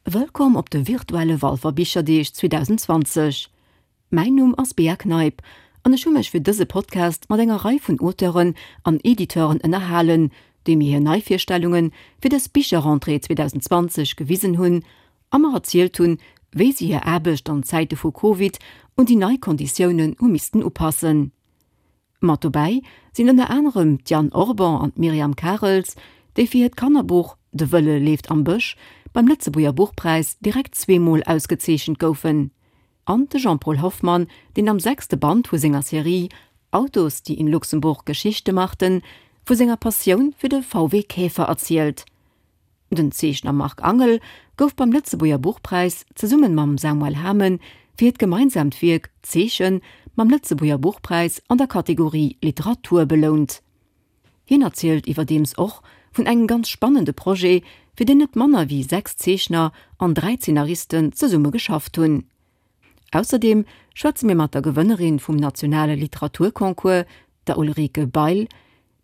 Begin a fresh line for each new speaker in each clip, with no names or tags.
Wëllkomm op de virtuelle Walfer Bicherdeeg 2020. Mäin Numm ass Bea Kneip an ech hu mech fir dëse Podcast mat enger Rei vun Auteuren an Editeuren ënnerhalen, déi mir hir Neivirstellunge fir dës Bicherrentrée 2020 gewisen hunn a mer erzielt hunn, wéi si hir Aarbecht an Zäite vu Covid un déi nei Konditiounen hu missten upassen. Mat dobäi sinn ënner anerem d'Yann Orban an d'Myriam Karels, déi fir hiert Kannerbuch De Wëlle leeft am Bësch beim Lëtzebuerger Buchpräis direkt zweemol ausgezeechent goufen, an de Jean-Paul Hoffmann, deen am sechste Band vu senger Serie Autos, die in Luxemburg Geschichte machten vu senger Passioun fir de VW Käfer erzielt. Den Zeechner Marc Angel gouf beim Lëtzebuerger Buchpräis zesumme mam Samuel Hamen fir hiert gemeinsaamt Wierk Zeechen mam Lëtzebuerger Buchpräis an der Kategorie Literatur belount. Hien erzielt iwwerdeems och vun engem ganz spannende Projet, fir deen net manner wéi 6 Zeechner an 3 Zeenaristen zesumme geschafft hunn. Ausserdeem schwätze mir mat der Gewënnerin vum nationale Literaturconcours, der Ulrike Bail,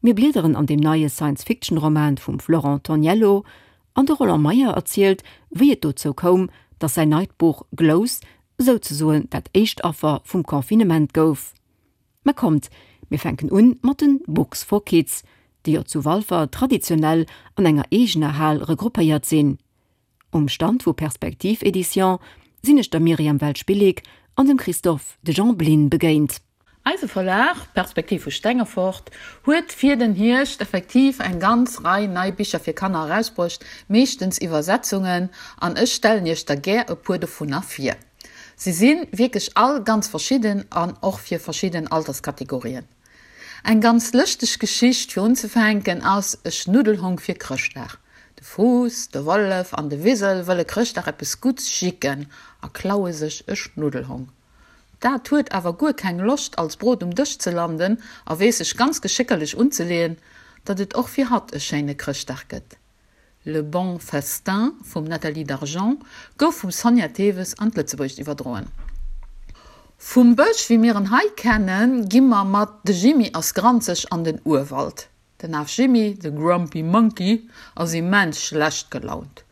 Mir bliederen an deem neie Science-Fiction-Roman vum Florent Toniello an de Roland Meyer erzielt, wéi et dozou koum, datt säin neit Buch Glous souzesoen dat éischt Affer vum Confinement gouf. Mä kommt, mir fänken un mat de Books for Kids, déi jo zu Walfer traditionell an enger eegener Hal regroupéiert sinn. Um Stand vu Perspektiv Éditions sinn ech der Myriam Welsch-Billig an dem Christophe de Jean Blin begéint.
Eise Verlag, Perspektiv vu Stengefort, huet fir den Hierscht effektiv eng ganz Rei nei Bicher fir Kanner erausbruecht, meeschtens Iwwersetzungen, an ech stellen iech der gär e puer dovunner vir. Se si wierklech all ganz verschidden an och fir verschidden Alterskategorien. Eng ganz lëschteg Geschicht fir unzefänken ass E Schnuddelhong fir Chrëschtdag. De Fuuss, de Wollef an de Wisel wëlle Chrëschtdag eppes Gutts jicken a klaue sech e Schnuddelhong. Dat huet awer guer keng Loscht als Brot um Dësch ze landen a weess sech ganz geschéckerlech unzeleeën, datt et och fir hatt e schéine Chrëschtdag gëtt. Le bon festin vum Nathalie Dargent gouf vum Sonja Theves an d'Lëtzebuergescht iwwerdroen. Vum Bësch, wéi mir en hei kennen, gi mer mat De Jimmy ass granzeg an den Urwald. Den Af Jimmy, de Grumpy Monkey, ass immens schlecht gelaunt.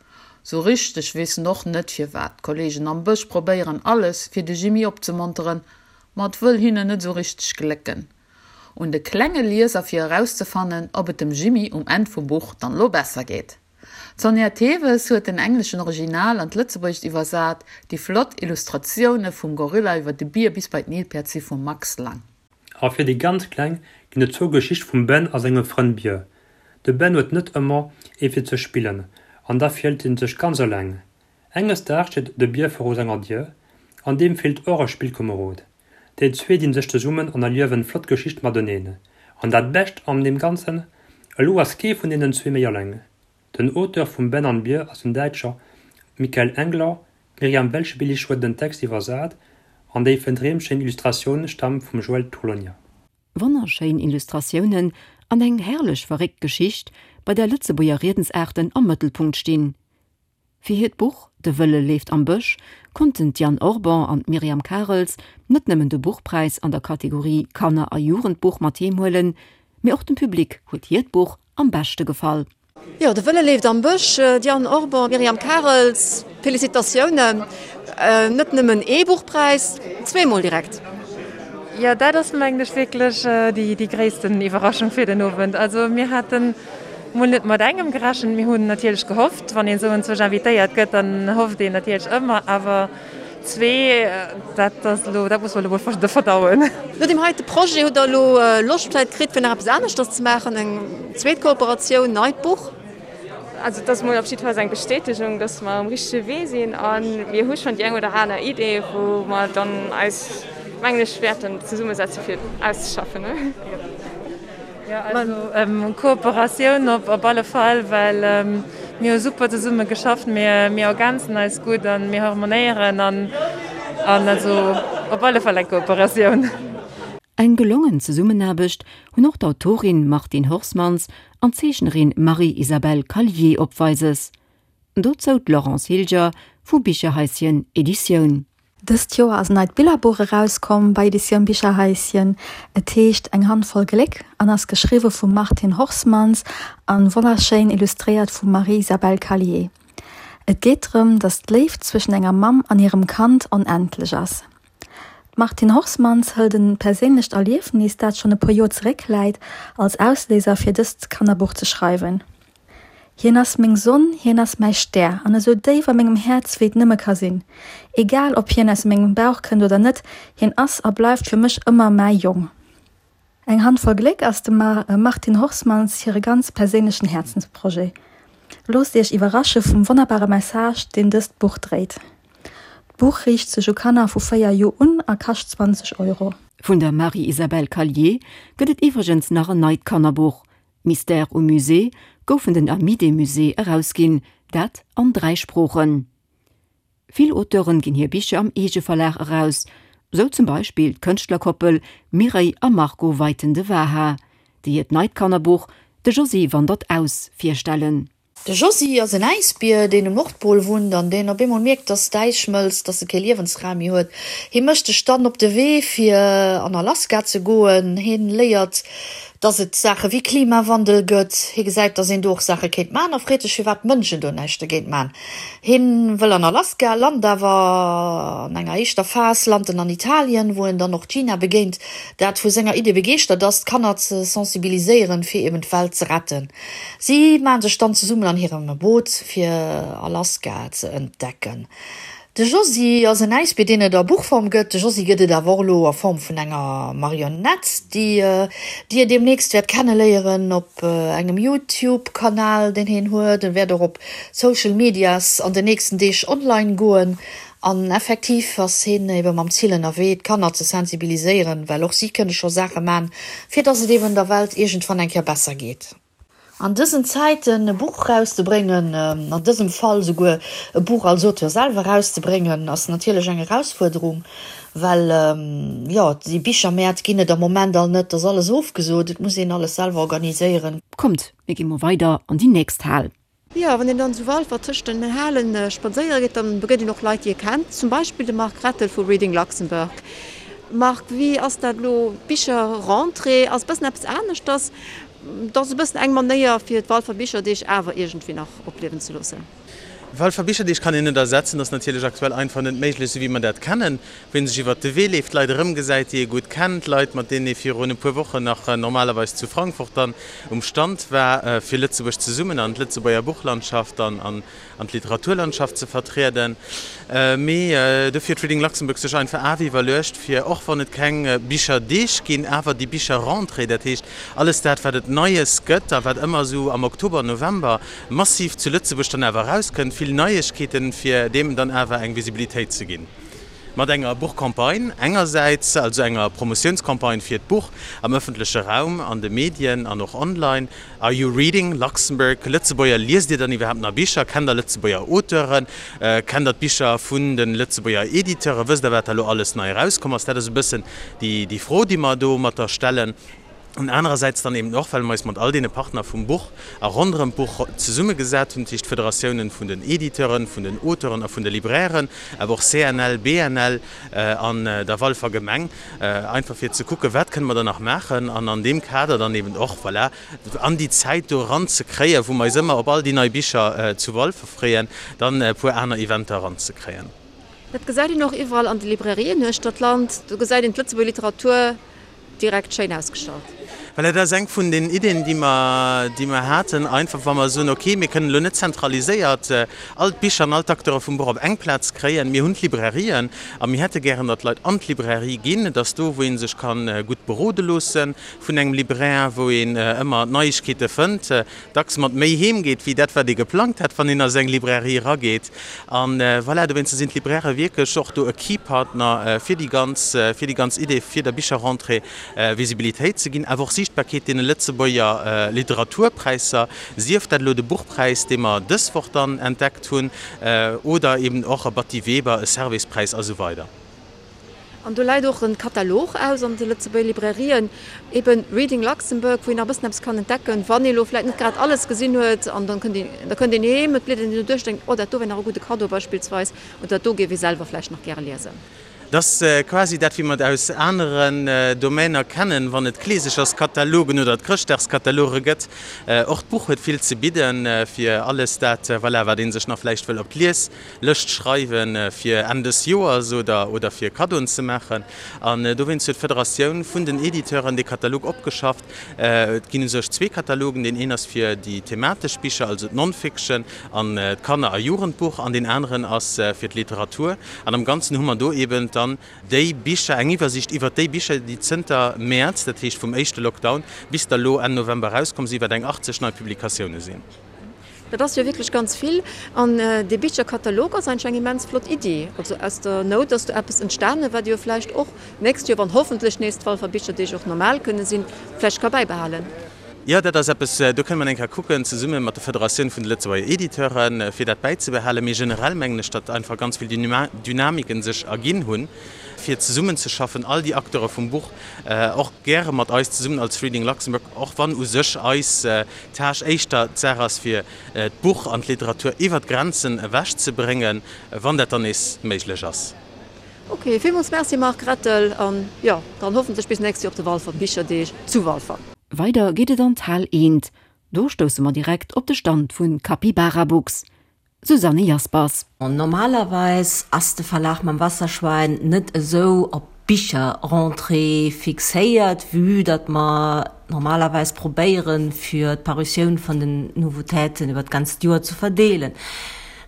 Sou richteg weess en och net firwat. D'Kollegen am Bësch probéieren alles, fir de Jimmy opzemonteren, ma et wëll hinnen net sou richteg glécken. Un de klenge Lieser fir erauszefannen, ob et dem Jimmy um Enn vum Buch dann elo besser geet. D'Sonja Theves huet den engleschen Original an d'Lëtzebuergescht iwwersat, déi flott Illustratioune vum Gorilla iwwer de Bier bis bei d'Nilpäerd si vum Max Lang.
A fir déi ganz Kleng ginn et zwou Geschichte vum Ben a sengem Frënd Bier. De Ben huet net ëmmer ee fir ze spillen an da fillt en sech ganz eleng. Enges Daags steet de Bier viru senger Dier an deem feelt och e Spillkomerod. Déi zwee dinn sech zesummen an erliewen flott Geschichte mateneen. An dat Bescht an deem Ganzen, elo ass kee vun deenen zwee méi alleng. Den Auteur vum Ben an Bier ass den Däitscher Michael Engler, d'Myriam Welschbillig huet den Text iwwersat an déi fëndreemschéin Illustratioun staamt vum Joël Torlonia.
Wonnerschéin Illustratiounen an eng herrlech verréckt Geschicht, bei där Lëtzebuerger Riedensaarten am Mëttelpunkt stinn. Fir hiert Buch De Wëlle leeft am Bësch konnten d'Yann Orban an d'Myriam Karels net nëmmen de Buchpräis an der Kategorie Kanner a Jugendbuch mat heem huelen, mee och dem Public huet hiert Buch am beschte gefall. Jo, De Wëlle leeft am Bësch, Diane Orban, Myriam Karels, Felicitatiounen! Net nëmmen ee Buchpräis, zweemol direkt.
Jo, dat ass mengen ech wierklech déi gréissten Iwwerraschung fir den Owend. Also mir haten mol net mat engem gerechent. Mir hunn natierlech gehofft, wann een esou enzwousch invitéiert gëtt, dann hofft een natierlech ëmmer, awer zwee, dat ass elo, dat muss mer elo mol verdauen.
No deem heite Projet, hutt der elo Loscht vläicht kritt, fir nach eppes aneschters ze maachen, eng zweet Kooperatioun, neit Buch?
Also et ass mol op jiddefalls eng Bestätegung, dass mer um richtege Wee sinn a mir hu schonn déi eng oder aner Idee, wou mer dann eis, mengen ech, wäerten zesummesetze fir auszeschaffen. Jo, also Kooperatioun op alle Fall, well mir hu super zesumme geschafft, mir ergänzen eis gutt a mir harmonéieren an also op alle Fall eng Kooperatioun.
Eng gelongen Zesummenaarbecht hunn och d'Autorin Martine Horsmans an d'Zeechnerin Marie-Isabelle Callier opweises. Dozou d'Laurence Hilger vu Bicherhaischen Editioun.
Dëst Joer ass en neit Billerbuch erauskomm bei Editioun Bicherhaischen. Et heescht Eng Handvoll Gléck an ass geschriwwe vum Martine Horsmans an wonnerschéin illustréiert vum Marie-Isabelle Callier. Et geet drëm, datt d'Léift zwëschen enger Mamm an hirem Kand onendlech ass. D'Martine Horsmans hëlt e perséinlecht Erliefnis, dat schonn e puer Joer zeréckläit, als Ausléiser fir dëst Kannerbuch ze schreiwen. Hien ass meng Sonn, hien ass mäi Stär an esou déif a mengem Häerz wéi et nëmme ka sinn. Egal ob hien aus mengem Bauch kënnt oder net, hien ass a bleift fir mech ëmmer mäi Jong. Eng Handvoll Gléck ass dem Martine Horsmans hire ganz perséinlechen Häerzensprojet. Loosst Iech iwwerrasche vum wonnerbare Message, deen dëst Buch dréit. D'Buch riicht sech u Kanner vu 4 Joer un a kascht 20 Euro.
Vun der Marie-Isabelle Callier gëtt et iwwregens nach en neit Kannerbuch, Mystère au musée gouf vun den Amis des Musées erausginn, dat an 3 Sproochen. Vill Auteuren ginn hir Bicher am Eegeverlag eraus, sou zum Beispill d'Kënschtlerkoppel Mireille a Marco Weiten-de Waha, déi hiert neit Kannerbuch De Josy wandert aus virstellen.
De Josy ass en Äisbier, deen um Nordpol wunnt an deen op eemol mierkt, dass d'Äis schmëlzt, dass e kee Liewensraum méi huet. Hie mécht sech dann op de Wee, fir an Alaska ze goen. Hien léiert, dass et Saache wéi Klimawandel gëtt. Hie gesäit, dass een do och Saache kéint man a freet sech, firwat d'Mënschen do näischt dogéint man. Hien wëll an Alaska, lant awer an enger éischter Phas lant en an Italien, wou en dann och d'Gina begéint, dat vu senger Idee begeeschtert ass, d'Kanner ze sensibiliséieren, fir eben d'Welt ze retten. Si maan sech dann zesummen an hirem Boot fir Alaska ze entdecken. De Josy ass en Äisbier, deen et a Buchform gëtt. De Josy gëtt et awer och elo a Form vun enger Marionett, déi Dir deemnächst wäert kenneléieren op engem YouTube-Kanal, deen hien huet. En wäert och op Social Medias an den nächsten Deeg online goen. An effektiv ass hien ebe mam Zil ënnerwee, d'Kanner ze sensibiliséieren, well och si kënne scho Saache man, fir dass et eben der Welt iergendwann eng Kéier besser geet. An dësen Zäiten e Buch erauszebréngen, an dësem Fall souguer e Buch als Auteur selwer erauszebréngen, ass natierlech eng Erausfuerderung, well, jo, déi Bichermäert ginn et am Moment all net, et ass alles ofgesot, et muss een alles selwer organiséieren.
Kommt, mir gi mol weider an déi nächst Hal.
Jo, wann een dann zu Walfer tëscht den Halen spadséiere geet, dann begéint een och Leit, déi ee kennt, zum Beispill de Marc Rettel vu Reading Luxembourg. Marc, wéi ass dat elo, d'Bicherrentrée ass e bëssen eppes aneschters. Et ass e bëssen eng Manéier, fir d'Walfer Bicherdeeg awer iergendwéi nach opliewen ze loossen.
Walfer Bicherdeeg kann een net ersetzen, ass natierlech aktuell einfach net méiglech, esou wéi mer dat kennen, wou ee sech iwwert de Wee leeft, Leit erëmgesäit, déi ee gutt kennt, Leit, mat deenen ee virun e puer Wochen nach normalerweis zu Frankfurt dann um Stand war, fir Lëtzebuerg zesummen an d'Lëtzebuerger Buchlandschaft an an d'Literaturlandschaft ze vertrieden. Mee dofir huet Reading Luxembourg sech einfach awer iwwerluecht, fir och wann et keng Bicherdeeg ginn, awer déi Bicherrentrée, dat heescht alles dat, wat et Neies gëtt a wat ëmmer esou am Oktober, November massiv zu Lëtzebuerg dann awer erauskënnt, vill Neiegkeeten, fir deem dann awer eng Visibilitéit ze ginn. Mat enger Buchcampagne engersäits, also enger Promotiounscampagne fir d'Buch am ëffentleche Raum, an de Medien an och online, Are you reading Luxembourg? Lëtzebuerger, liest Dir dann iwwerhaapt nach Bicher? Kennt der Lëtzebuerger Auteuren? Kennt der d'Bicher vun de Lëtzebuerger Editeuren? Wësst der, wat da lo alles nei erauskomm ass? Dat ass e bëssen déi Fro, déi mer domatter stellen. An anerersäits dann eben och, well mer eis mat all deene Partner vum Buch a ronderëm d'Buch zesummegesat hunn, dat heescht d'Federatiounen vun den Editeuren, vun den Auteuren a vun de Librairen, awer och CNL, BNL an der Walfer Gemeng, einfach fir ze kucken, wat kënne mer da nach maachen an an deem Kader dann eben och, voilà, an déi Zäit do eranzekréien, wou mer eis ëmmer op all déi nei Bicher zu Walfer freeën, dann e puer aner Eventer eranzekréien.
Dat gesäit een och iwwerall an de Librairien uechter d'Land. Do gesäit een d'Lëtzebuerger Literatur direkt schéin ausgestallt.
Voilà, dat ass eng vun den Iddien, déi mer, déi mer haten, einfach wa mer soen, okay, mir kënnen elo net zentraliséiert all d'Bicher an all d'Acteure vum Buch op eng Plaz kréien. Mir hunn d'Librairien a mir hätte gären, datt d'Leit an d'Librairie ginn. Et ass do, wou ee sech ka gutt berode loosse vun engem Libraire, wou een ëmmer Neiegkeete fënnt, dacks mat méi heem geet, wéi dat, wat ee geplangt hat, wann een a seng Librairie erageet. An voilà, dowéinster sinn d'Librairë wierklech och do e Key Partner fir déi ganz, fir déi ganz Idee, fir der Bicherrentrée Visibilitéit ze ginn, awer och Siichtbarkeet deene Lëtzebuerger Literaturpräisser, sief dat elo de Buchpräis, dee mer dës Woch dann entdeckt hunn, oder eben och e Batty Weber, e Servais-Präis a sou weider.
An do läit och e Katalog aus an de Lëtzebuerger Librairien, eben Reading Luxembourg, wou een nach e bëssen eppes kann entdecken, wann ee lo vläicht net grad alles gesinn huet. An dann kënnt een, da kënnt een heem, et bliedert een do duerch, denkt, oh dat do wär nach e gudde Kaddo beispillsweis, oder dat do géif ee selwer vläicht nach gäre liesen.
Dat ass quasi dat, wéi mer et aus aneren Domainer kennen, wann et d'Kleesecherskatalogen oder d'Chrëschtdagskataloge gëtt. Och d'Buch huet vill ze bidden, fir alles dat, voilà, wat ee sech nach vläicht wëll op d'Lieslëscht schreiwen, fir Enn des Joers oder, oder fir Kaddoen ze maachen. An dowéinst huet d'Federatioun vun den Editeuren dee Katalog opgeschafft. Et ginn u sech zwee Katalogen, Deen een ass fir déi thematesch Bicher, also d'Non-Fiction an d'Kanner a Jugendbuch, an deen aneren ass fir d'Literatur. An am Ganzen hu mer do eben dann déi Bicher, eng Iwwersiicht iwwert déi Bicher, déi zënter Mäerz, dat heescht vum éischte Lockdown, bis da lo Enn November erauskomm sinn, wat eng 80 nei Publikatioune sinn.
Dat ass jo wierklech ganz vill. An dee Bicherkatalog ass eigentlech eng immens flott Iddi. Also aus der Nout ass do eppes entstanen, wat ee jo vläicht och d'nächst Joer, wann hoffentlech nees d'Walfer Bicherdeeg och normal kënne sinn, vläicht ka bäibehalen.
Jo, dat ass eppes, do kënne mer eng Kéier kucken, zesumme mat der Federatioun vun de Lëtzebuerger Editeuren, fir dat bäizebehalen. Mee generell mengen ech, datt einfach ganz vill Dynamiken sech erginn hunn, fir zesummenzeschaffen, all déi Acteure vum Buch, och gäre mat eis zesummen als Reading Luxembourg, och wann u sech eis Tâche éischter d'Saach ass, fir d'Buch an d'Literatur iwwer d'Grenzen ewech ze bréngen, wann dat dann nees méiglech ass.
Ok, villmools Merci Marc Rettel, an jo, dann hoffentlech bis nächst Joer op de Walfer Bicherdeeg zu Walfer.
Weider geet et an d'Hal Eent. Do stousse mer direkt op de Stand vu Capybara Books. Susanne Jaspers.
Normalerweis ass de Verlag mam Wasserschwein net esou op d'Bicherrentrée fixéiert, vue datt mer normalerweis probéieren, fir d'Parutioun vun den Nouveautéiten iwwer d'ganzt Joer ze verdeelen.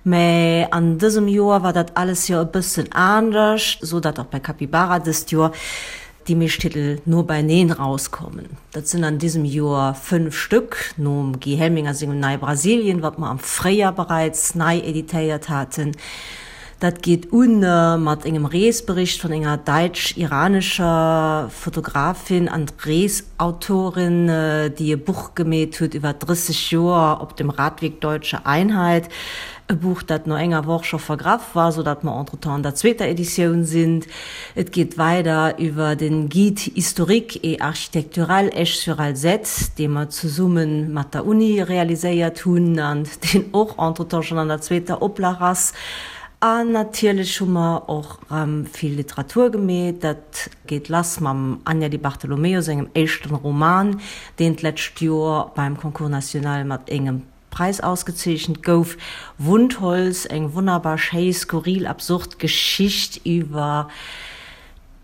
Mä an dësem Joer war dat alles jo e bëssen anescht, sou datt och bei Capybara dëst Joer déi meescht Titel no beineen rauskommen. Dat sinn an diesem Joer 5 Stück, nom Guy Helminger sengem Nei Brasilien, wat mer am Fréijar bereits nei editéiert haten. Dat geet un mat engem Reesbericht vun enger däitsch-iranescher Fotografin an Reesautorin, déi e Buch gemeet huet iwwer 30 Joer op dem Radweg Deutsche Einheit. E Buch, dat no enger Woch scho vergraff war, sou datt mer entretemps an der zweeter Editioun sinn. Et geet weider iwwer den Guide historique et architectural Esch-sur-Alzette, dee mer zesumme mat der Uni realiséiert hunn an deen och entretemps schonn an der zweeter Oplag ass. An natierlech hu mer och erëm vill Literatur gemeet. Dat geet lass mam Anja Di Bartolomeo sengem éischten Roman, deen d'lescht Joer beim Concours national mat engem Preis ausgezeechent gouf. Wundholz, eng wonnerbar schéi, skurril absurd Geschicht iwwer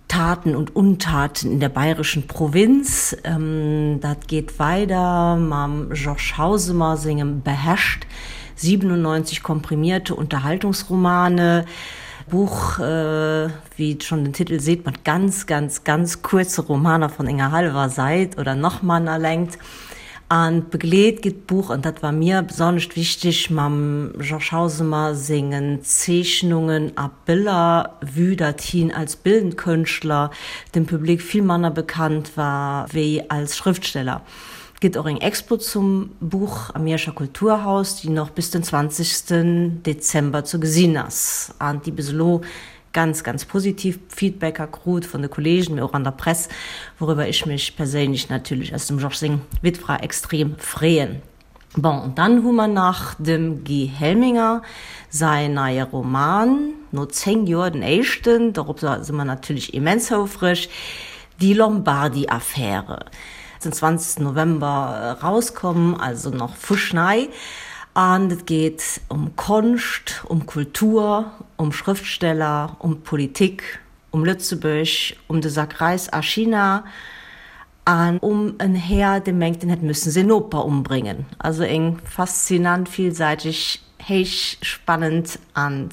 Taten und Untaten in der bayerischen Provinz. Dat geet weider mam Georges Hausemer sengem Beherrscht, 97 komprimierte Unterhaltungsromane. Buch, wéi schonn den Titel seet, mat ganz, ganz, ganz kuerze Romaner von enger hallwer Säit oder nach manner Längt. An begleet gëtt d'Buch, an dat war mir besonnescht wichteg, mam Georges Hausemer sengen Zeechnungen a Biller, vue datt hien als bildend Kënschtler dem Public vill manner bekannt war wéi als Schrëftsteller. Et gëtt och eng Expo zum Buch am Mierscher Kulturhaus, déi nach bis den 20 Dezember ze gesinn ass an déi bis elo ganz, ganz positiv Feedbacker krut vun de Kollegen, mee och an der Press, wouriwwer ech mech perséinlech natierlech als dem Georges seng Wittfra extrem freeën. Bon, an dann hu mer nach dem Guy Helminger säin neie Roman, no 10 Joer den éischten, dorop si mer natierlech immens houfreg, Die Lombardi-Affäre. Den 20 November erauskomm, also nach fuschnei. An et geet ëm Konscht, ëm Kultur, ëm Schrëftsteller, ëm d'Politik, ëm Lëtzebuerg, ëm de Sak Räis a China an ëm en Här, dee mengt, en hätt müssen säin Noper ëmbréngen. Also eng faszinant, villsäiteg, héich spannend an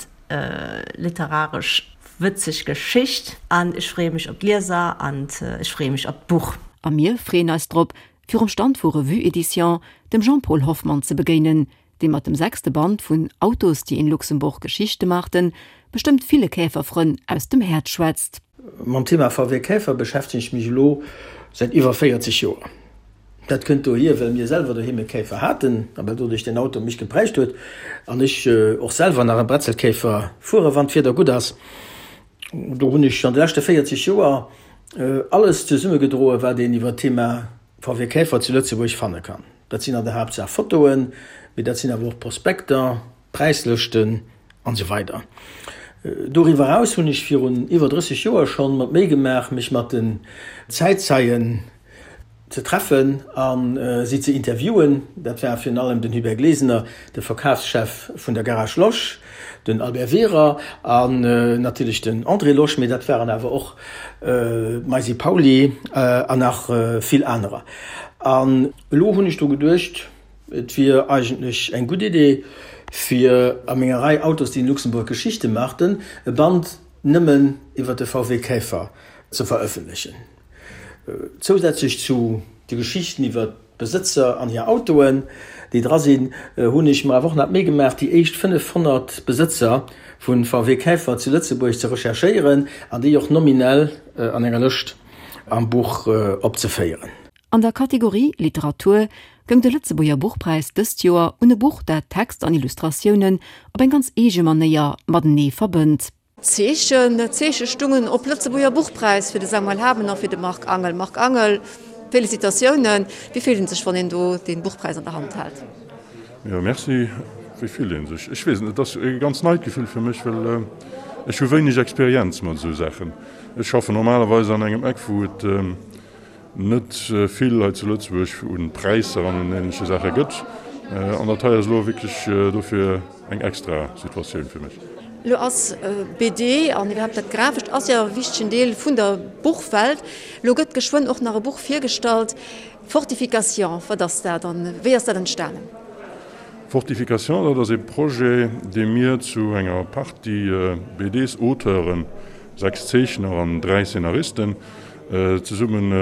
literaresch wëtzeg Geschicht. An ech freeë mech op d'Lieser an ech freeë mech op d'Buch.
A mir freeën eis drop, virum Stand vu Revue Edition dem Jean-Paul Hoffmann ze begéinen, dee mat dem sechste Band vun Autos, die in Luxemburg Geschichte machten bestëmmt ville Käferfrënn aus dem Häerz schwätzt.
Mam Thema VW Käfer beschäftegen ech mech elo säit iwwer 40 Joer. Dat kënnt dohier, well mir selwer doheem e Käfer haten a well doduerch den Auto mech geprägt huet an ech och selwer nach e Bretzelkäfer fuere wann d'Wieder gutt ass. Do hunn ech an de leschte 40 Joer alles zesummegedroe wat een iwwer d'Thema VW Käfer zu Lëtzebuerg fanne kann. Dat sinn an der Haaptsaach Fotoen, mee dat sinn awer och Prospekter, Präislëschten an esou weider. Doriwwer eraus hunn ech virun iwwer 30 Joer schonn mer d'Méi gemaach, mech mat den Zäitzeien ze treffen a si ze interviewen. Dat war virun allem den Hubert Glesener, de Verkafschef vun der Garage Losch, den Albert Wehrer an natierlech den André Losch, mee dat waren awer och d'Maisy Pauly an nach vill anerer. An elo hunn ech dru geduecht, et wier eigentlech eng gutt Idee, fir a menger Rei Autos, die in Luxemburg Geschichte machten, e Band nëmmen iwwer de VW Käfer ze verëffentlechen. Zousätzlech zu de Geschichten iwwer d'Besëtzer an hir Autoen, déi dra sinn, hunn ech mer awer och nach d'Méi gemaach, déi éischt 500 Besëtzer vu VW Käfer zu Lëtzebuerg ze recherchéieren an déi och nominell an enger Lëscht am Buch opzeféieren.
An der Kategorie Literatur goung de Lëtzebuerger Buchpräis dëst Joer un e Buch, dat Text an Illustratiounen op eng ganz eege Manéier matenee verbënnt.
Zeechen, Zeeche stungen op Lëtzebuerger Buchpräis fir de Samuel Hamen a fir de Marc Angel. Marc Angel, Félicitatiounen. Wéi fillt een sech, wann een do dee Buchpräis an der Hand hält?
Jo, merci. Wéi fillt ee sech? Ech weess et net. Et ass e ganz neit Gefill fir mech, well ech hu wéineg Experienz mat esou Saachen. Ech schaffen normalerweis an engem Eck, wou et net vill hei zu Lëtzebuerg un Präisser an un ähnleche Saache gëtt. An dat hei ass elo wierklech dofir eng extra Situatioun fir mech.
Elo ass BD an iwwerhaapt dat Grafescht ass jo e wichtegen Deel vun der Buchwelt. Elo gëtt geschwënn och nach e Buch virgestallt, Fortification. Wat ass dat an wéi ass dat entstanen?
Fortification, dat ass ee Projet, dee mir zu enger Partie BDs-Auteuren, 6 Zeechner an 3 Szenaristen, zesummen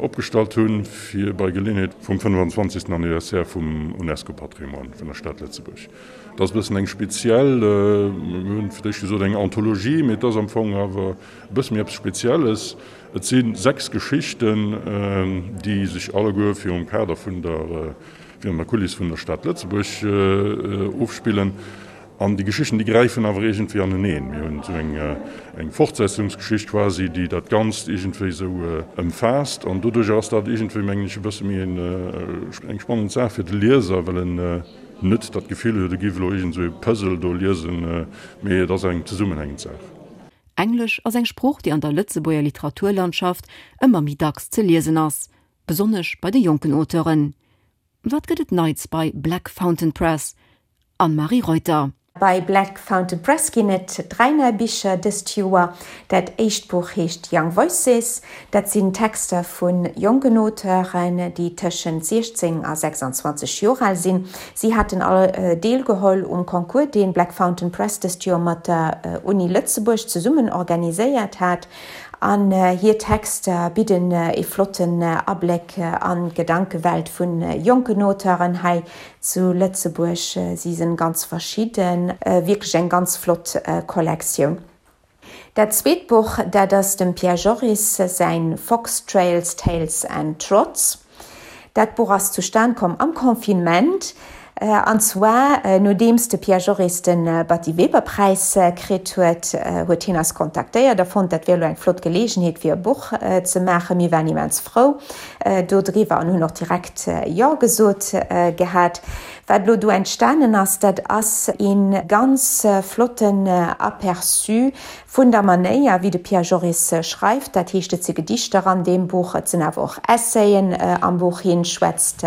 opgestallt hunn, fir bei Geleeënheet vum 25. Anniversaire vum UNESCO-Patrimoine vun der Stad Lëtzebuerg. Dat ass e bëssen eng speziell, mir hunn fir d'éischt gesot eng Anthologie, mee et ass am Fong awer e bësse méi eppes Spezielles. Et si 6 Geschichten, déi sech alleguer virum Kader vun der, virun der Kuliss vun der Stad Lëtzebuerg ofspillen. An déi Geschichten, déi gräifen awer iergendwéi aneneen. Mir hunn esou eng, eng Fortsetzungsgeschicht quasi, déi dat Ganzt iergendwéi esou ëmfaasst. An doduercher ass dat iergendwéi, mengen ech, e bësse méi en, eng spannend Saach fir de Lieser, well en net dat Gefill huet, e géif elo iergend esou e Puzzle do liesen, mee et ass eng zesummenhängend Saach.
Englesch ass eng Sprooch, déi an der Lëtzebuerger Literaturlandschaft ëmmer méi dacks ze liesen ass, besonnesch bei de jonken Auteuren. Wat gëtt et Neits bei Black Fountain Press? Anne-Marie Reuter.
Bei Black Fountain Press ginn et 3 nei Bicher dëst Joer. Dat éischt Buch heescht Young Voices. Dat sinn Texter vu jonken Auteuren, déi tëschent 16 a 26 Joer al sinn. Si haten all deelgeholl um Concours, dee Black Fountain Press dëst Joer mat der Uni Lëtzebuerg zesummen organiséiert hat. An hir Texter bidden e flotten Abléck an d'Gedankewelt vu jonken Auteuren hei zu Lëtzebuerg. Si sinn ganz verschidden, wierklech eng ganz flott Kollektioun. Dat zweet Buch, dat ass dem Pierre Joris säin Fox Trails, Tales and Trots. Dat Buch ass zustan komm am Confinement, an zwar nodeems de Pierre Joris de Batty Weber Präis kritt huet, huet hien eis kontaktéiert a fonnt, dat wier elo eng flott Geleegenheet fir e Buch ze maachen. Mir waren immens frou dodriwwer an hunn och direkt Jo gesot gehat. Wat elo do entstanen ass, dat ass ee ganz flotten Aperçu Vun der Manéier, wéi de Pierre Joris schreift, dat heescht, et si Gedichter an deem Buch, et sinn awer och Essayen am Buch. Hien schwätzt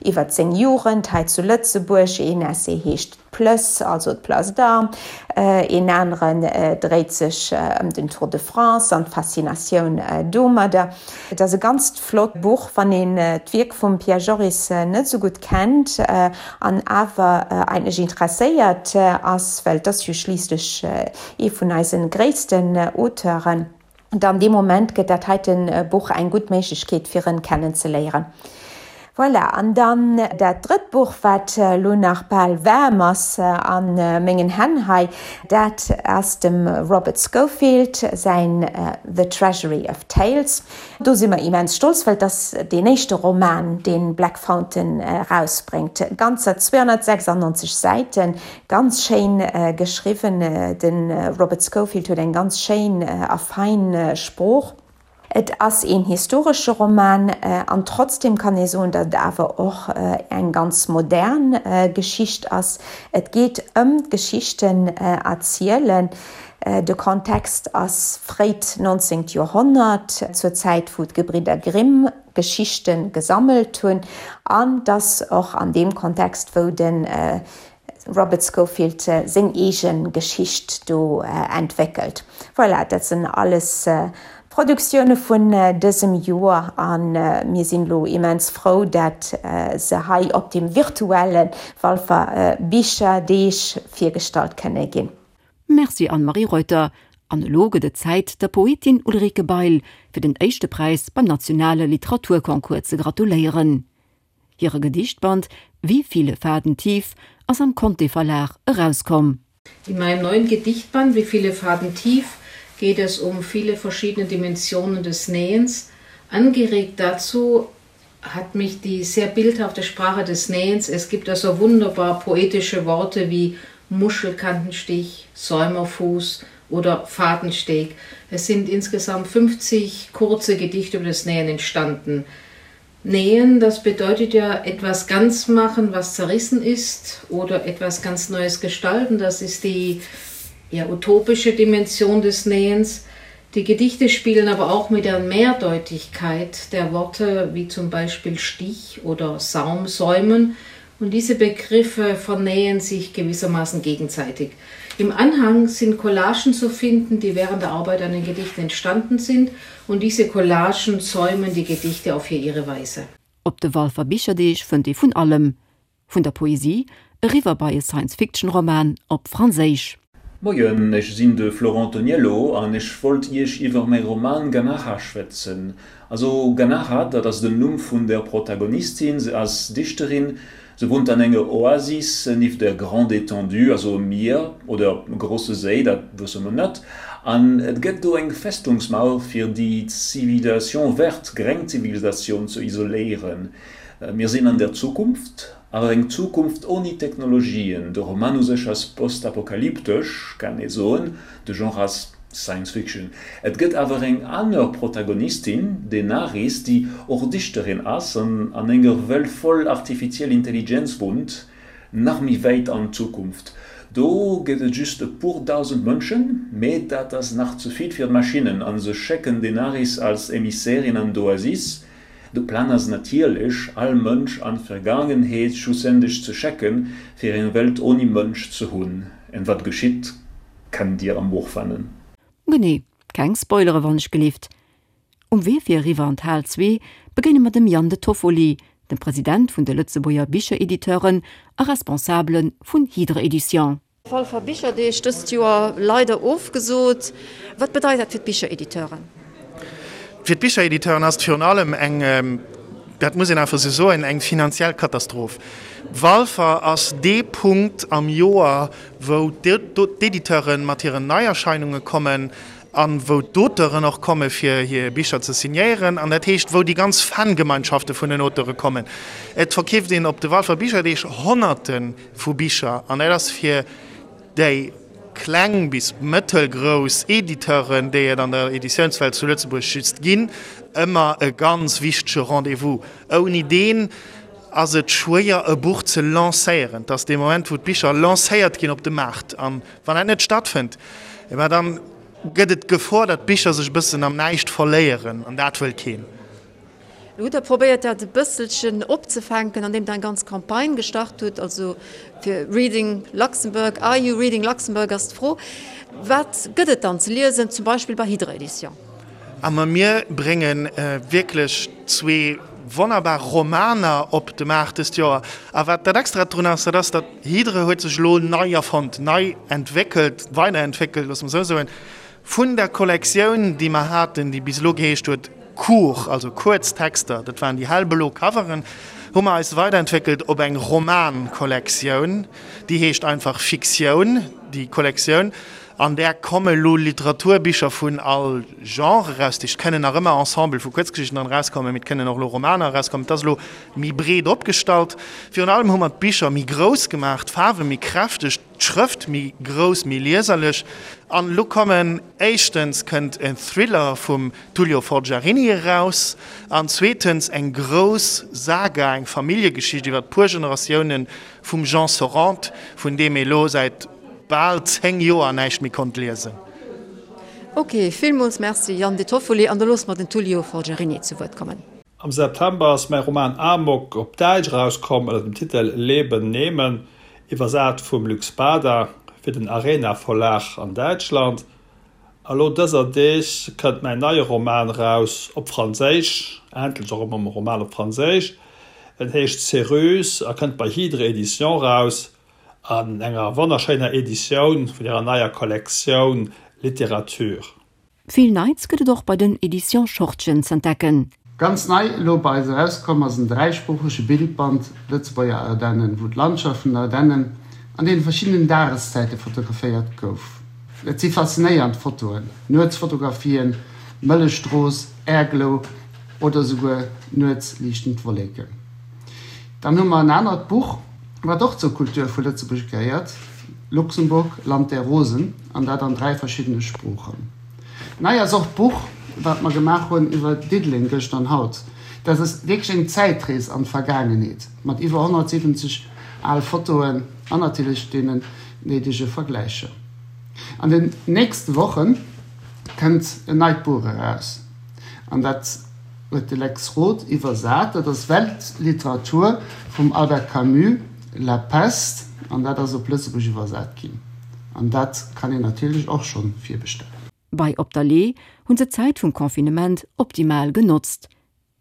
iwwert seng Jugend hei zu Lëtzebuerg, een Essay heescht D'Plëss, also d'Place d'Armes, een aneren dréit sech ëm den Tour de France an d'Faszinatioun domadder. Et ass e ganzt flott Buch, wann een d'Wierk vum Pierre Joris net esou gutt kennt an awer eigentlech interesséiert ass, well et ass jo schliisslech ee vun eise gréissten Auteuren, dann dee Moment gëtt dat heiten Buch eng gutt Méiglechkeet fir en kennen ze léieren. Voilà, an dann dat drëtt Buch, wat elo nach bal waarm ass a mengen Hänn hei, dat ass dem Robert Scofield säin The Treasury of Tales. Do si mer immens stolz, well et ass deen éischte Roman, dee Black Fountain erausbréngt. Ganzer 296 Säiten, Ganz schéin geschriwwen. De Robert Scofield huet eng ganz schéin a fein Sprooch. Et ass een historesche Roman an trotzdem kann ee soen, datt et awer och eng ganz modern Geschicht ass. Et geet ëm d'Geschichten erzielen. De Kontext ass fréit 19. Joerhonnert, zur Zäit wou d'Gebridder Grimm Geschichte gesammelt hunn an et ass och an deem Kontext wou de Robert Scofield seng eege Geschicht do entwéckelt. Voilà, dat sinn alles Produktioune vun dësem Joer a mir sinn elo immens frou, dat se hei op dem virtuelle Walfer Bicherdeeg virgestallt kënne ginn.
Merci Anne-Marie Reuter. An elo gëtt et Zäit, der Poetin Ulrike Bail fir den éischte Präis beim nationale Literaturconcours ze gratuléieren. Hire Gedichtband Wie viele Faden tief ass am Conté Verlag erauskomm.
In meinem neuen Gedichtband Wie viele Faden tief geht es um viele verschiedene Dimensionen des Nähens. Angeregt dazu hat mich die sehr bildhafte Sprache des Nähens. Es gibt also wunderbar poetische Worte wie Muschelkantenstich, Säumerfuß oder Fadensteg. Es sind insgesamt 50 kurze Gedichte über das Nähen entstanden. Nähen, das bedeutet ja etwas ganz machen, was zerrissen ist oder etwas ganz Neues gestalten. Das ist die ja, utopische Dimension des Nähens. Die Gedichte spielen aber auch mit der Mehrdeutigkeit der Worte, wie zum Beispiel Stich oder Saumsäumen. Und diese Begriffe vernähen sich gewissermaßen gegenseitig. Im Anhang sind Collagen zu finden, die während der Arbeit an den Gedichten entstanden sind und diese Collagen säumen die Gedichte auf hier ihre Weise.
Op de Walfer Bicherdeeg fënnt ee vun allem, vun der Poesie eriwwer bei e Science-Fiction-Roman op Franséisch.
Moien, ech sinn de Florent Toniello an ech wollt iech iwwer mäi Roman Ganacha schwätzen. Also Ganacha, dat ass den Numm vun der Protagonistin, se ass Dichterin, se wunnt an enger Oasis nieft der Grande Étendue, also e Mier oder e grosse Séi, dat wësse mer net, an et gëtt do eng Festungsmauer fir déi Civilisation verte, gréng Zivilisatioun, ze isoléieren. Mir sinn an der Zukunft, Awer eng Zukunft oni Technologien. De Roman u sech ass postapokalyptesch, kann ee soen, de Genre ass Science Fiction. Et gëtt awer eng aner Protagonistin, d'Enaris, déi och Dichterin ass an an enger Welt voll artifiziell Intelligenz wunnt, nach méi wäit an d'Zukunft. Do gëtt et just e puer dausend Mënschen, mee dat ass nach ze vill fir d'Maschinnen a se schécken d'Enaris als Emissärin an d'Oasis, De Plan ass natierlech, all Mënsch an d'Vergaangenheet schlussendlech ze schecken, fir eng Welt oni Mënsch ze hunn. En wat geschitt, kennt dir am Buch fannen.
Genee, keng Spoilere wann ech gelift. Um Wee fir eriwwer an d'Hal 2 begéine mer dem Yann De Toffoli, dem President vun de Lëtzebuerger Bicherediteuren a Responsabele vun Hydre Edition.
Walfer Bicherdeeg dëst Joer leider ofgesot. Wat bedeit dat fir d'Bicherediteuren?
Fir d'Bicherediteuren ass et virun allem eng, dat muss een einfach esou soen, eng finanziell Katastroph. Walfer ass dee Punkt am Joer, wou d'Editeure mat hiren Neierscheinunge kommen a wou d'Auteuren och komme fir hir Bicher ze signéieren, an dat heescht, wou déi ganz Fangemeinschafte vun den Auteure kommen. Et verkeeft een op de Walfer Bicherdeeg Honnerte vu Bicher, an dat ass fir déi kleng bis mëttelgrouss Editeuren, déi et an der Editiounswelt zu Lëtzebuerg just ginn, ëmmer e ganz wichtege Rendez-vous. Ouni deen ass et schwéier, e Buch ze lancéieren. Et ass dee Moment, wou d'Bicher lancéiert ginn op de Maart. A wann dat net stattfënnt, ma dann gëtt et d'Gefor, datt d'Bicher sech e bëssen am Näischt verléieren, an dat wëll keen.
Lo hutt Der probéiert dat e bësselchen opzefänken, andeem Der eng ganz Campagne gestart hutt, also fir Reading Luxembourg, Are you reading Luxembourg ass d'Fro. Wat gëtt et dann ze liesen, zum Beispill bei Hydre Edition?
A ma mir brénge wierklech zwee wonnerbar Romaner op de Maart dëst Joer. A wat dat Extrat drun ass, dat ass, datt Hydre huet sech elo nei erfonnt, nei entwéckelt, weiderentwéckelt, loosse mer esou soen. Vun der Kollektioun, déi mer haten, déi bis elo geheescht huet Court, also kuerz Texter, dat waren déi hellblo Coveren, hu mer eis weiderentwéckelt op eng Roman-Kollektioun, déi heescht einfach Fiktioun. déi Kollektioun. An där komme lo Literaturbicher vun all Genre eraus. Et kënnen nach ëmmer Ensemble vu Kuerzgeschichten dran erauskommen, mee et kënnen och elo Romaner erauskommen. Et ass elo méi breet opgestallt. Virun allem hu mer d'Bicher méi grouss gemaach, d'Faarwe méi kräfteg, d'Schrëft méi grouss, méi lieserlech. An elo kommen, éischtens kënnt en Thriller vum Tullio Forgiarini eraus an zweetens eng grouss Saga, eng Familljegeschicht iwwer e puer Generatiounen vum Jean Sorrente, vun deem ee lo säit bal 10 Joer näischt méi konnt liesen.
Ok, villmools Merci Yann De Toffoli, an da loosse mer den Tullio Forgiarini zu Wuert kommen.
Am September ass mäi Roman Amok op Däitsch erauskomm ënner dem Titel Leben nehmen, iwwersat vum Luc Spada fir den Arena Verlag an Däitschland. A lo dëser Deeg kënnt mäin neie Roman eraus, op Franséisch, endlech och emol e Roman op Franséisch. En heescht Céruse a kënnt bei Hydre Éditions eraus. An enger wonnerschéiner Editioun vun hirer neier Kollektioun Littérature.
Vill Neits gëtt et och bei den Editions Schortgen z'entdecken.
Ganz nei elo bei eis erauskomm ass en dräisproochege Bildband Lëtzebuerger Ardennen, wou d'Landschaft vun den Ardennen an deene verschiddenen Dageszäite fotograféiert gouf. Et si faszinéiernd Fotoen, Nuetsfotografien, Mëllechstrooss, Airglow oder esouguer nuets liichtend Wolleken. Dann hu mer en anert Buch, wat och zur Kultur vu Lëtzebuerg gehéiert, Luxemburg, Land der Rosen, an dat an 3 verschiddene Sproochen. Nei ass och d'Buch, wat mer gemaach hunn iwwer Diddeleng gëschter an haut. Dat ass wierklech eng Zäitrees an d'Vergaangenheet, mat iwwer 170 al Fotoen an natierlech deenen néidege Vergläicher. An den nächste Woche kënnt en neit Buch eraus, an dat huet de Lex Roth iwwersat. Dat ass Weltliteratur vum Albert Camus, La Peste, an dat ass op Lëtzebuerg iwwersat ginn. An dat kann een natierlech och schonn virbestellen.
Bei Op der Lee hunn se d'Zäit vum Confinement optimal genotzt.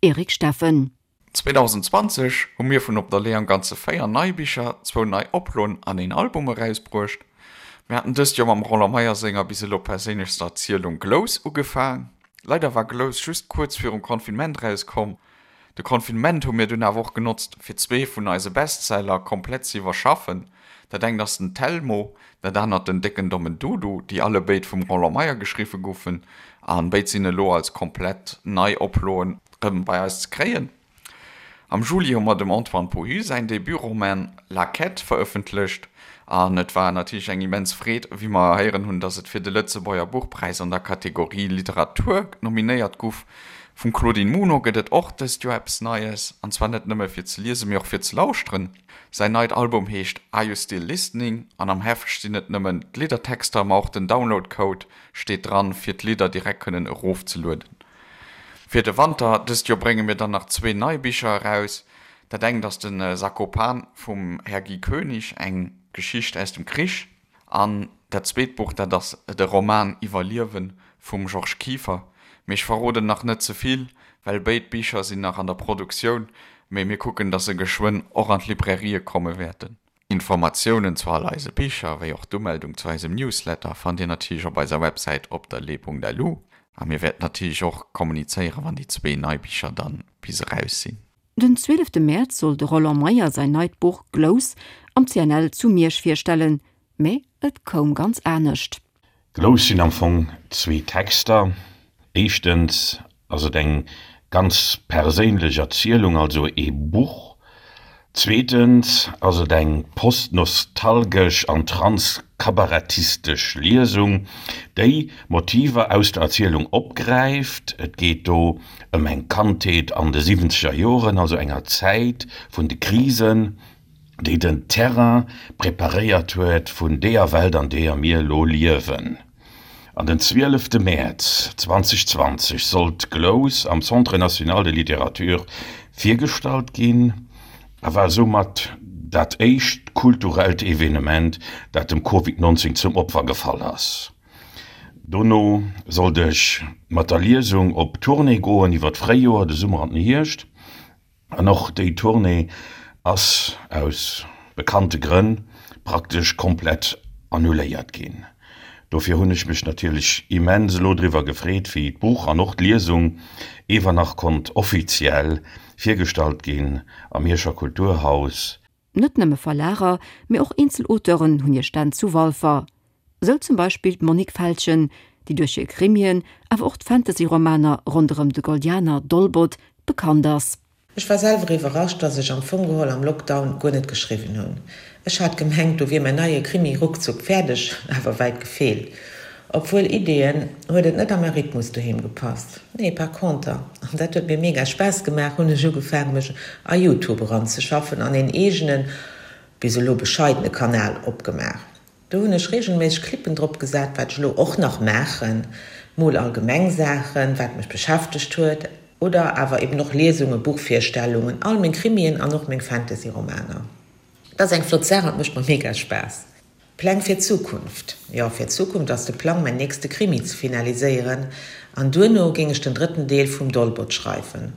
Eric Steffen.
2020 hu mir vun Op der Lee am Ganze 4 nei Bicher, zwou nei Oploen an een Album erausbruecht. Mir haten dëst Joer mam Roland Meyer senger bis elo perséinlechster Erzielung Glous ugefaang. Leider war Glous just kuerz virum Confinement erauskomm. De Confinement hu mir dunn awer och genotzt, fir zwee vun eise Bestseller komplett ze iwwerschaffen. Dat engt ass den Telmo, dat anert den Décken Dommen Dudu, déi allebéid vum Roland Meyer geschriwwe goufen. An béid sinn elo als komplett nei Oploen rëm bei eis ze kréien. Am Juli hu mer dem Antoine Pohu säin Debutroman La Quête verëffentlecht an et war natierlech eng immens Freed, wéi mer héieren hunn, dass et fir de Lëtzebuerger Buchpräis an der Kategorie Literatur nominéiert guff. Vum Claudine Muno gëtt et och dëst Joer eppes Neies, an zwar net nëmme fir ze liesen, mee och fir ze lauschteren. Säin neit Album heescht Are You Still Listening? an am Heft stinn net nëmmen d'Liddertexter, ma och den Download-Code steet dran, fir d'Lidder direkt kënnen erofzelueden. Fir de Wanter dëst Joer brénge mir dann nach zwee nei Bicher eraus. Dat engt ass de Sakopan vum Här Guy Koenig, eng Geschicht aus dem Krich. An dat zweet Buch, dat ass de Roman Iwwerliewen vum Georges Kieffer. Mee ech verroden nach net ze vill, well béid Bicher sinn nach an der Produktioun, mee mir kucken, dass se geschwënn och an d'Librairië komme wäerten. Informatiounen zu all eise Bicher, wéi och d'Umeldung zu eisem Newsletter fannt dir natierlech op eiser Websäit op der lee.lu. A mir wäerten natierlech och kommunizéieren, wann déi zwee nei Bicher dann bis eraus sinn.
Den 12 Mäerz soll de Roland Meyer säin neit Buch Glous am CNL zu Miersch virstellen, mä et koum ganz anescht.
Glous sinn am Fong zwee Texter. Éischtens ass et eng ganz perséinlech Erzielung, also ee Buch. Zweetens ass et eng postnostalgesch an transkabarettistesch Liesung, déi Motiver aus der Erzielung opgräift. Et geet do ëm eng Kandheet an de siwwenzeger Joren, also enger Zäit vun de Krisen, déi den Terrain preparéiert huet vun deeër Welt, an deeër mir elo liewen. An den zwielefte Mäerz 2020 sollt Glous am Centre national de littérature virgestallt ginn a war soumat dat éischt kulturellt Evenement, dat dem Covid 19 zum Opfer gefall ass. Dono sollt ech mat der Liesung op Tournée goen iwwer d'Fréijoer, de Summer an den Hierscht. An och déi Tournée ass aus bekannte Grënn praktesch komplett annuléiert ginn. Dofir hunn ech mech natierlech immens elo driwwer gefreet, wéi d'Buch an och d'Liesung ewer nach konnt offiziell virgestallt ginn am Mierscher Kulturhaus.
Net nëmme Verlager, mee och eenzel Auteuren hunn hir Stänn zu Walfer. Sou zum Beispill d'Monique Feltgen, déi duerch hir Krimien, awer och d'Fantasy-Romaner ronderëm de Goldianer Dolbot bekannt ass.
Ech war selwer iwwerrascht, dass ech am Fong geholl am Lockdown guer net geschriwwen hunn. Ech hat gemengt, do wier mäin neie Krimi ruckzuck fäerdeg, awer wäit gefeelt. Obwuel Ideeën, huet et net a mäi Rhythmus doheem gepasst. Nee, par conter, an dat huet mir mega Spaass gemaach, hunn ech ugefaangen, mech a Youtube eranzeschaffen an een eegenen, bis elo bescheidene Kanal opgemaach. Do hunn ech regelméisseg Clippen drop gesat, wat ech elo och nach maachen, mol allgemeng Saachen, wat mech beschäftegt huet, oder awer eben och Liesungen, Buchvirstellungen, all meng Krimien an och meng Fantasy-Romaner. Et ass eng flott Saach an et mécht mer mega Spaass. Pläng fir d'Zukunft? Jo, fir d'Zukunft ass de Plang, mäin nächste Krimi ze finaliséieren an duerno géing ech den drëtten Deel vum Dolbot schreiwen.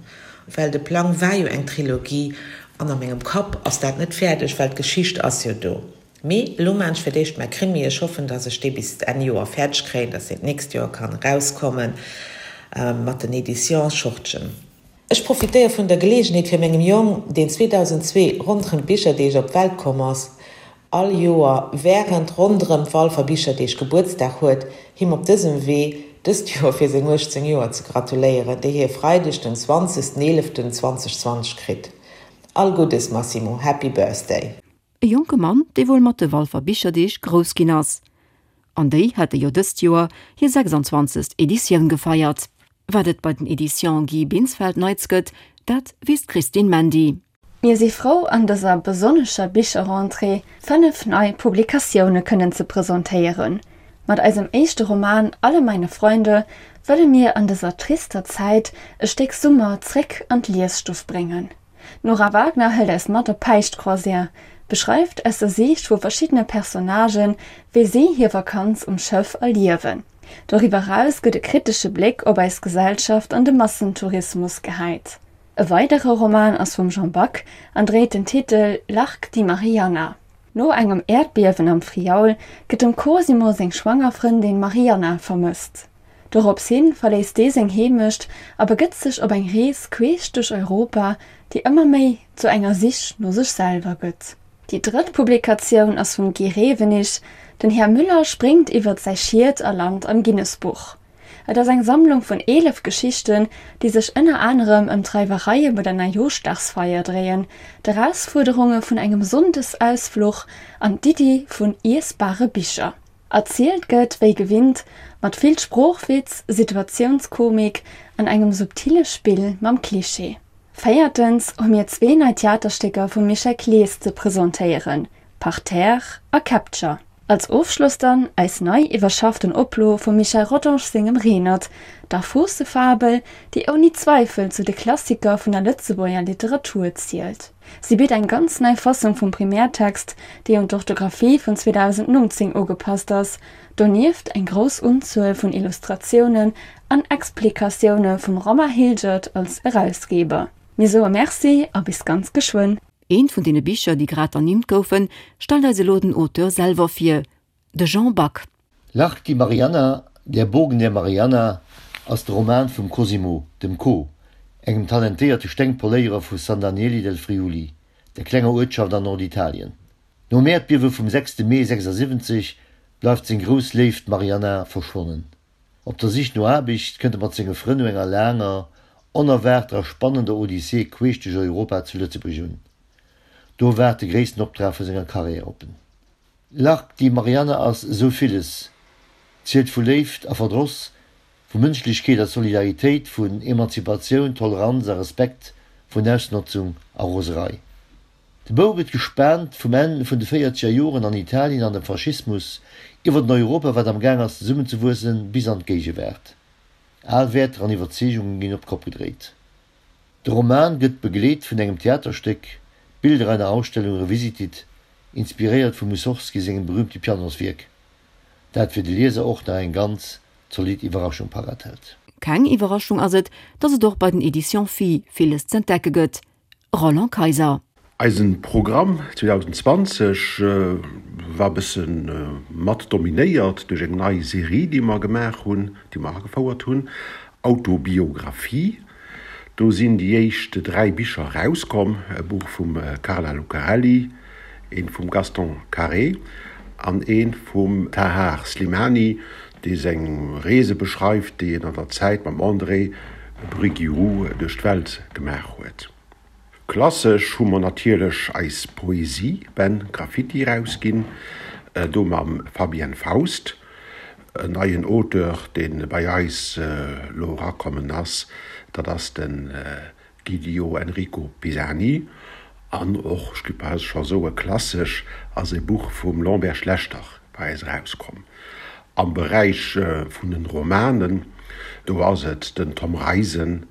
Well de Plang war jo eng Trilogie an a mengem Kapp ass dat net fäerdeg, well d'Geschicht ass jo do. Mee elo maan ech fir d'éischt mäi Krimi. Ech hoffen, dass ech dee bis Enn Joer fäerdeg kréien, dass deen d'nächst Joer kann erauskommen mat den Editions Schortgen. Ech profitéier vun der Geleegenheet fir mengem Jong, deen 2002 ronderëm d'Bicherdeeg op d'Welt komm ass, all Joer während ronderëm d'Walfer Bicherdeeg Gebuertsdag huet, him op dësem Wee dëst Joer fir seng 18 Joer ze gratuléieren, déi hie Freideg den 20 11 2020 kritt. All Guddes Massimo, Happy Birthday!
E jonke Mann, dee wuel mat de Walfer Bicherdeeg grouss ginn ass. An déi hate jo dëst Joer hir 26. Editioun gefeiert. Wat et bei den Editions Guy Binsfeld Neits gëtt, dat weess d'Christine Mandy.
Mir si frou an dëser besonnescher Bicherrentrée 5 nei Publikatioune kënnen ze presentéieren. Mat eisem éischte Roman Alle meine Freunde wëlle mir an dëser trister Zäit e Stéck Summer zréck an d'Liesstuff bréngen. D'Nora Wagner hëlt eis mat op Päischtcroisière, beschreift aus der Siicht vu verschiddene Personnagen, wéi si hir Vakanz um Schëff erliewen. Doriwwer eraus gëtt e kritesche Bléck op eis Gesellschaft an de Massentourismus gehäit. E weidere Roman ass vum Jean Back an dréit den Titel L'Arc di Marianna. No engem Äerdbiewen am Friaul gëtt dem Cosimo seng schwanger Frëndin Marianna vermësst. Dorops hin verléisst dee seng Heemecht a begëtt sech op eng Rees queesch duerch Europa, déi ëmmer méi zu enger Sich no sech selwer gëtt. Déi drëtt Publikatioun ass vum Guy Rewenig, Den Här Müller spréngt iwwert säi Schiet a lant am Guinness-Buch. Et ass eng Sammlung vun 11 Geschichten, déi sech ënner anerem ëm d'Reiwereie bei der Neijooschdagsfeier dréien, d'Erausfuerderunge vun engem Sonndesausfluch an d'Iddi vun iessbare Bicher. Erzielt gëtt wéi gewinnt mat vill Sproochwitz, Situatiounskomik an engem subtile Spill mam Klischee. Véiertens hu mir zwee nei Theaterstécker vum Michel Clees ze presentéieren, Parterre a Capture. Als Ofschloss dann eis nei iwwerschafften Oplo vum Michel Rodange sengem Renert, der Foossefabel, déi ouni Zweifel zu de Klassiker vun der Lëtzebuerger Literatur zielt. Si bitt eng ganz nei Fassung vum Primärtext, déi un d'Orthographie vun 2019 ugepasst ass, donieft eng grouss Unzuel vun Illustratiounen an Explikatioune vum Romain Hilgert als Erausgeber. Mir soe Merci a bis ganz geschwënn!
Eent vun deene Bicher, déi grad ernimmt goufen, stellt eis elo den Auteur selwer vir, de Jean Back.
L'Arc di Marianna, Der Bogen der Marianna, ass de Roman vum Cosimo, dem Co, engem talentéierte Stengpoléierer vu San Daniele del Friuli, der klenger Uertschaft an Norditalien. Nom Äerdbiewe vum sechste Mee 76 bleift seng grouss Léift Marianna verschwonnen. Op der Sich no Aarbecht kënnt e mat senge Frënn no enger laanger, onerwaarter a spannender Odyssee queesch duerch Europa zu Lëtzebuerg un. Do waart de gréissten Optrag vu senger Karriär op en. L'Arc di Marianna ass esou villes, zielt vu Léift a Verdross, vu Mënschlechkeet a Solidaritéit, vun Emanzipatioun, Toleranz a Respekt, vun Ausnotzung a Roserei. De Bou gëtt gespaant vum Enn vun de véierzeger Joren an Italien an dem Faschismus, iwwer en Europa wat am Gaang ass zesummenzewuessen, bis an d'Géigewaart. Al Wäerter an Iwwerzeegungen ginn op d'Kopp gedréit. De Roman gëtt begleet vun engem Theaterstéck, Bilder einer Ausstellung revisited, inspiréiert vum Mussorgsky sengem berüümte Pianoswierk, dat fir de Lieser och nach eng ganz zolidd Iwwerraschung parat hält.
Keng Iwwerraschung ass et, datt et och bei den Editions Phi villes z'entdecke gëtt. Roland Kayser.
Eisen Programm 2020 war bëssen mat dominéiert duerch eng nei Serie déi mer gemaach hunn, déi mer agefouert hunn, Autobiographie. Do sinn déi éischt 3 Bicher erauskomm, e Buch vum Carla Lucarelli, eent vum Gaston Carré. an eent vum Tahar Slimani, dee seng Reese beschreift, déi en an der Zäit mam André Briguiroux duerch d'Welt gemaach huet. Klassesch hu mer natierlech eis Poesie-Bänn Graffiti erausginn, do mam Fabienne Faust, en neien Auteur, dee bei eis elo erakommen ass, dat ass de Guidio Enrico Pisani. An och, ech géif bal scho soe klassesch, ass e Buch vum Lambert Schlechter bei eis erauskomm. Am Beräich vun den Romanen, do ass et den Tom Reisen,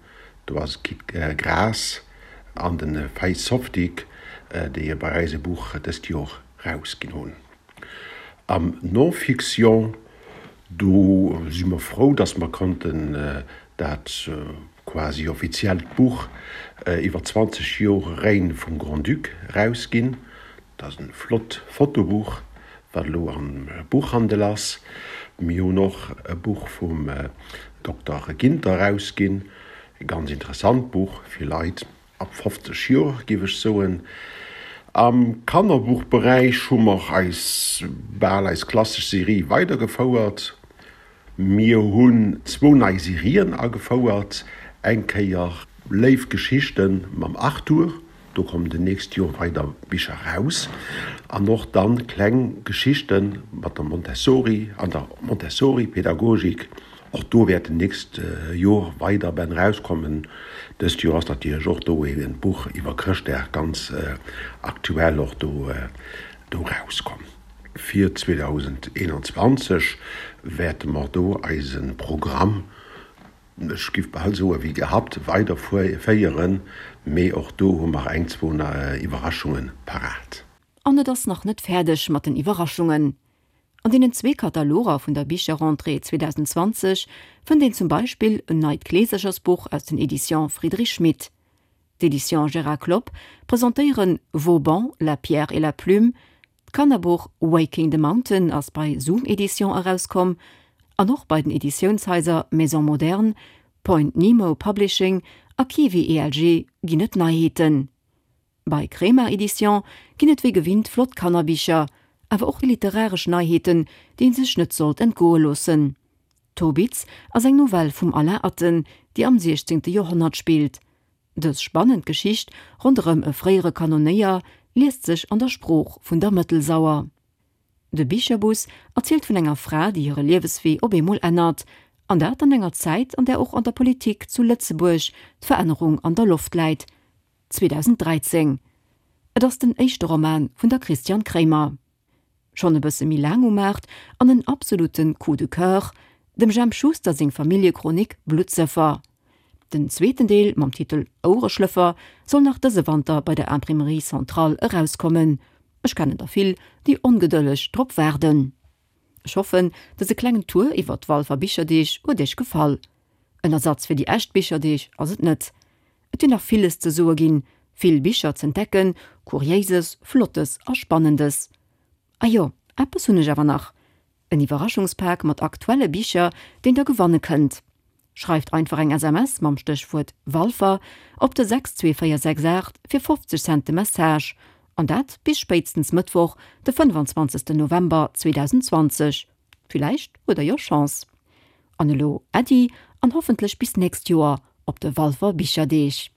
Do ass et Kit Graas an de Faiz Softic, déi bei eis e Buch dëst Jor rausginn hunn. Am Non-Fiction, do si mer frou, dass mer konnten dat quasi offiziellt Buch iwwer 20 Jor Règne vum Grand-Duc rausginn. Dat ass e flott Fotobuch, wat elo am Buchhandel ass. Mir hunn och e Buch vum Dokter Ginter erausginn, e ganz interessant Buch fir Leit ab 50 Joer, géif ech soen. Am Kannerbuchberäich hu mer eis bal eis klassesch Serie weidergefouert. Mir hunn zwou nei Serien agefouert, eng Kéier Léif Geschichten mam Arthur, do kommen den nächst Joer weider Bicher raus, an och dann kleng Geschichten mat der Montessori an der Montessori-Pädagogik, och do wäerten nächst Joer weider Bänn rauskommen. Dëst Joer ass natierlech och do een Buch iwwer Chrëschtdag ganz aktuell och do rauskomm. Fir 2021 wäerte mer do eise Programm, ech giff bal soe wéi gehabt, weiderféieren, mee och do hu mer eng, zwou Iwwerraschunge parat.
An et ass nach net fäerdeg mat den Iwwerraschungen. An deenen zwee Kataloger vun der Bicherrentrée 2020 fënnt een zum Beispill en neit Kleeserchersbuch aus den Editions Friedrich Schmid. D'Editions Gérard Klopp presentéieren Vauban, la pierre et la plume, d'Kannerbuch Waking the Mountain ass bei Zoom Editions erauskomm an och bei den Editiounshaiser Maison Moderne, Point Nemo Publishing a Kiwi ELG ginn et Neiheeten. Bei Kremart Editions ginn et wéi gewinnt flott Kannerbicher, awer och literaresch Neiheeten, déi een sech net sollt entgoe loossen. Tobitz ass eng Novell vum Alain Atten, déi am 16. Joerhonnert spillt. Dës spannend Geschicht ronderëm e fréiere Kanonéier liest sech an der Sprooch vun der Mëttelsauer. De Bicherbus erzielt vun enger Fra, déi hire Lieweswee op eemol ännert, an dat an enger Zäit, an där och an der Politik zu Lëtzebuerg d'Verännerung an der Loft läit. 2013. Et ass den éischte Roman vun der Christiane Kremer. Schonn e bësse méi laang um Maart an en absolute Coup de coeur, dem Jemp Schuster seng Familljechronik Bluttsëffer. Den zweeten Deel mam Titel Ouereschlëffer soll nach dëse Wanter bei der Imprimerie Centrale erauskommen. Ech kennen der vill, déi ongedëlleg drop waarden. Ech hoffen, dëse klengen Tour iwwer d'Walfer Bicherdeeg huet iech gefall. En Ersatz fir déi echt Bicherdeeg ass et net. Et wier nach villes ze soe ginn, vill Bicher z'entdecken, Kuriéises, Flottes a Spannendes. A jo, eppes hunn ech awer nach, en Iwwerraschungspak mat aktuelle Bicher, deen der gewanne kënnt. Schreift einfach eng SMS mam Stéchwuert Walfer op de 62468 fir 50 Cent de Message, an dat bis spéitstens Mëttwoch, de 25 November 2020. Villäicht huet der jo Chance. An elo Äddi an hoffentlech bis nächst Joer op de Walfer Bicherdeeg.